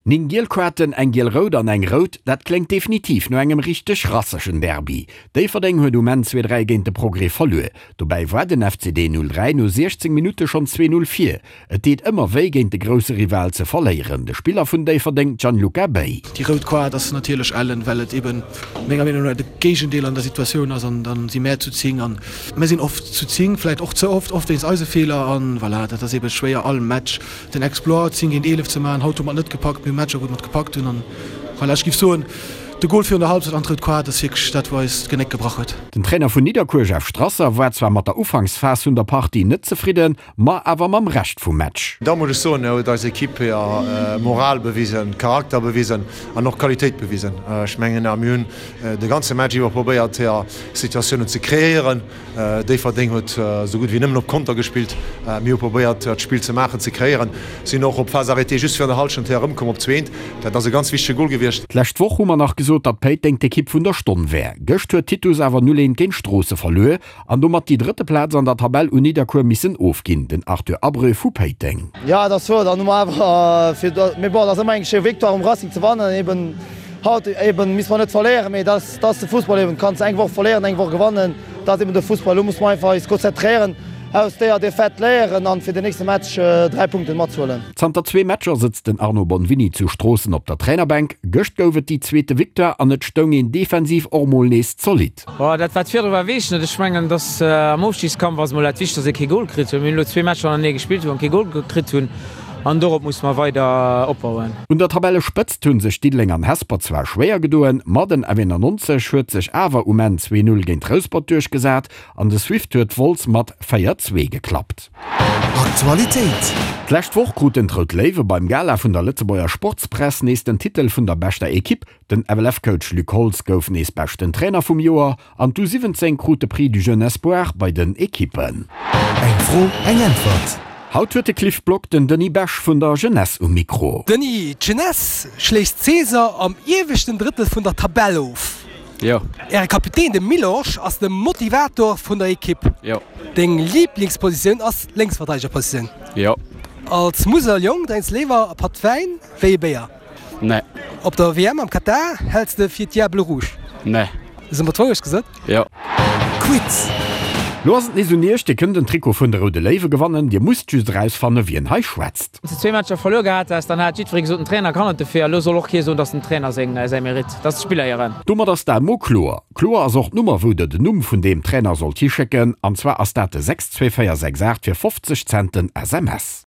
9 giel Kaarten, eng giel-rout an eng rout, dat kléngt definitiv no engem richteg rassegen Derby. Déifferdeng huet um Enn 2, 3 géint de Progrès verluer. Dobäi war den FCD 03 no 16 Minutte schonn 2, 0 vir. Et deet ëmmer wéi géint de grousse Rival ze verléieren. De Spiller vun Déifferdeng, Gianluca Bay. Déi rout Kaart ass natierlech ellen, well et eben menger Meenung no de Géigendeel an der Situatioun ass an dann si mär zu 10 an mär sinn oft zu 10, vläit och ze oft, oft wéinst eise Feeler an voilà, dat ass eben schwéier all Match den Exploit 10 géint 11 ze maachen. Haut hu mer et net gepackt, mir hu Matcher wou mer et gepackt hunn an voilà, ech géif soen de Gol virun der Halbzeit an d'rout Kaart ass wierklech dat wou eis d'Genéck gebrach huet. Den Trainer vun Nidderkuer Jeff Strasser war zwar mat der Ufanksphas vun der Partie net zefridden, ma awer mam Rescht vum Match. Da muss ech soen, huet eis Equipe hir Moral bewisen, Charakter bewisen an och Qualitéit bewisen. Ech mengen, mir hunn de ganze Match iwwer probéiert, hir Situatiounen ze kreéieren. Déifferdeng huet esou gutt wéi nëmmen op Konter gespillt. Mir hu probéiert, d'Spill ze maachen, ze kreéieren, sinn och op Phase arrêtée just virun der Hallschent hir erëmkomm op zweent. Dat ass e ganz wichtege Gol gewiescht. D'lescht Woch hu mer nach gesot, datt Péiteng d'Ekipp vun der Stonn wär. Gëscht huet Titus awer 0, 1 géint Stroosse verluer An domat déi drëtte Plaz an der Tabell un Nidderkuer missen ofginn, den Arthur Abreu vu Péiteng. Jo, et ass wuer, dann hu mer awer fir, mee bon, et ass ëmmer eng schéi Victoire um Racing ze wannen, eben haut eben misste mer net verléieren, mee dat ass de Fussball eben, du kanns eng Woch verléieren, eng Woch gewannen, dat ass eben de Fussball. Elo musse mer einfach eis konzentréieren, aus déier Defaite léieren an fir den nächste Match 3 Punkten matzehuelen. Zanter zwee Matcher sëtzt den Arno Bonvini zu Stroossen op der Trainerbänk. Gëscht gouf et déi zweete Victoire an et stoung een defensiv och mol nees zolidd. Bon, dat wat virdru war, weess ech net. Ech mengen, dass am Ofstigskampf ass emol dat Wichtegst, dass ee kee Gol kritt huet. Mir hunn elo zwee Matcher hannertenee gespillt, wou mer kee Gol kritt hunn an dorop musse mer weider opbauen. Un der Tabellespëtzt hu sech Diddeleng an Hesper zwar schwéier gedoen, ma den F91 huet sech awer um Enn 2, 0 géint Rouspert duerchgesat an de Swift huet Wolz mat 4, 2 geklappt. Aktualitéit. D'lescht Woch kruten d'Rout Léiwe beim Gala vun der Lëtzebuerger Sportspress nees den Titel vun der beschter Ekipp Den FLF-Coach Luc Holtz gouf nees beschten Trainer vum Joer an d'U 17 krut de Prix du Jeune Espoir bei den Ekippen. Eng Fro, eng Äntwert. Haut huet de Cliff Block den Denis Besch vun der Jeunesse um Mikro. Denis, d'Jeunesse schléisst d'Saison am ieweschten Drëttel vun der Tabell of. Jo. Äre Kapitän, de Milosch, ass de Motivator vun der Ekipp. Jo. Deng Liiblingspositioun ass d'Lénksverteidegerpositioun. Jo. Als Museljong drénks léiwer e Patt Wäin wéi e Béier. Nee. Op der WM am Katar häls de fir d'Diables Rouges? Nee. Hu mer d'Wourecht gesot? Jo. Quiz. Lo ass et nees un iech, Dir kënnt en Trikot vun de Roude Léiwe gewannen. Dir musst just erausfanne wien hei schwätzt. Wann s de zwee Matcher verluer gehat häss, dann hat jiddweree gesot, den Trainer kann net dofir. Elo soll och kee soen, dass dem Trainer seng säi Mérite, dass d'Spiller hiren. Domat ass dat mol kloer. Kloer ass och d'Nummer wou der den Numm vun deem Trainer sollt hischécken, an zwar ass dat de 62468 fir 50 Cent den SMS.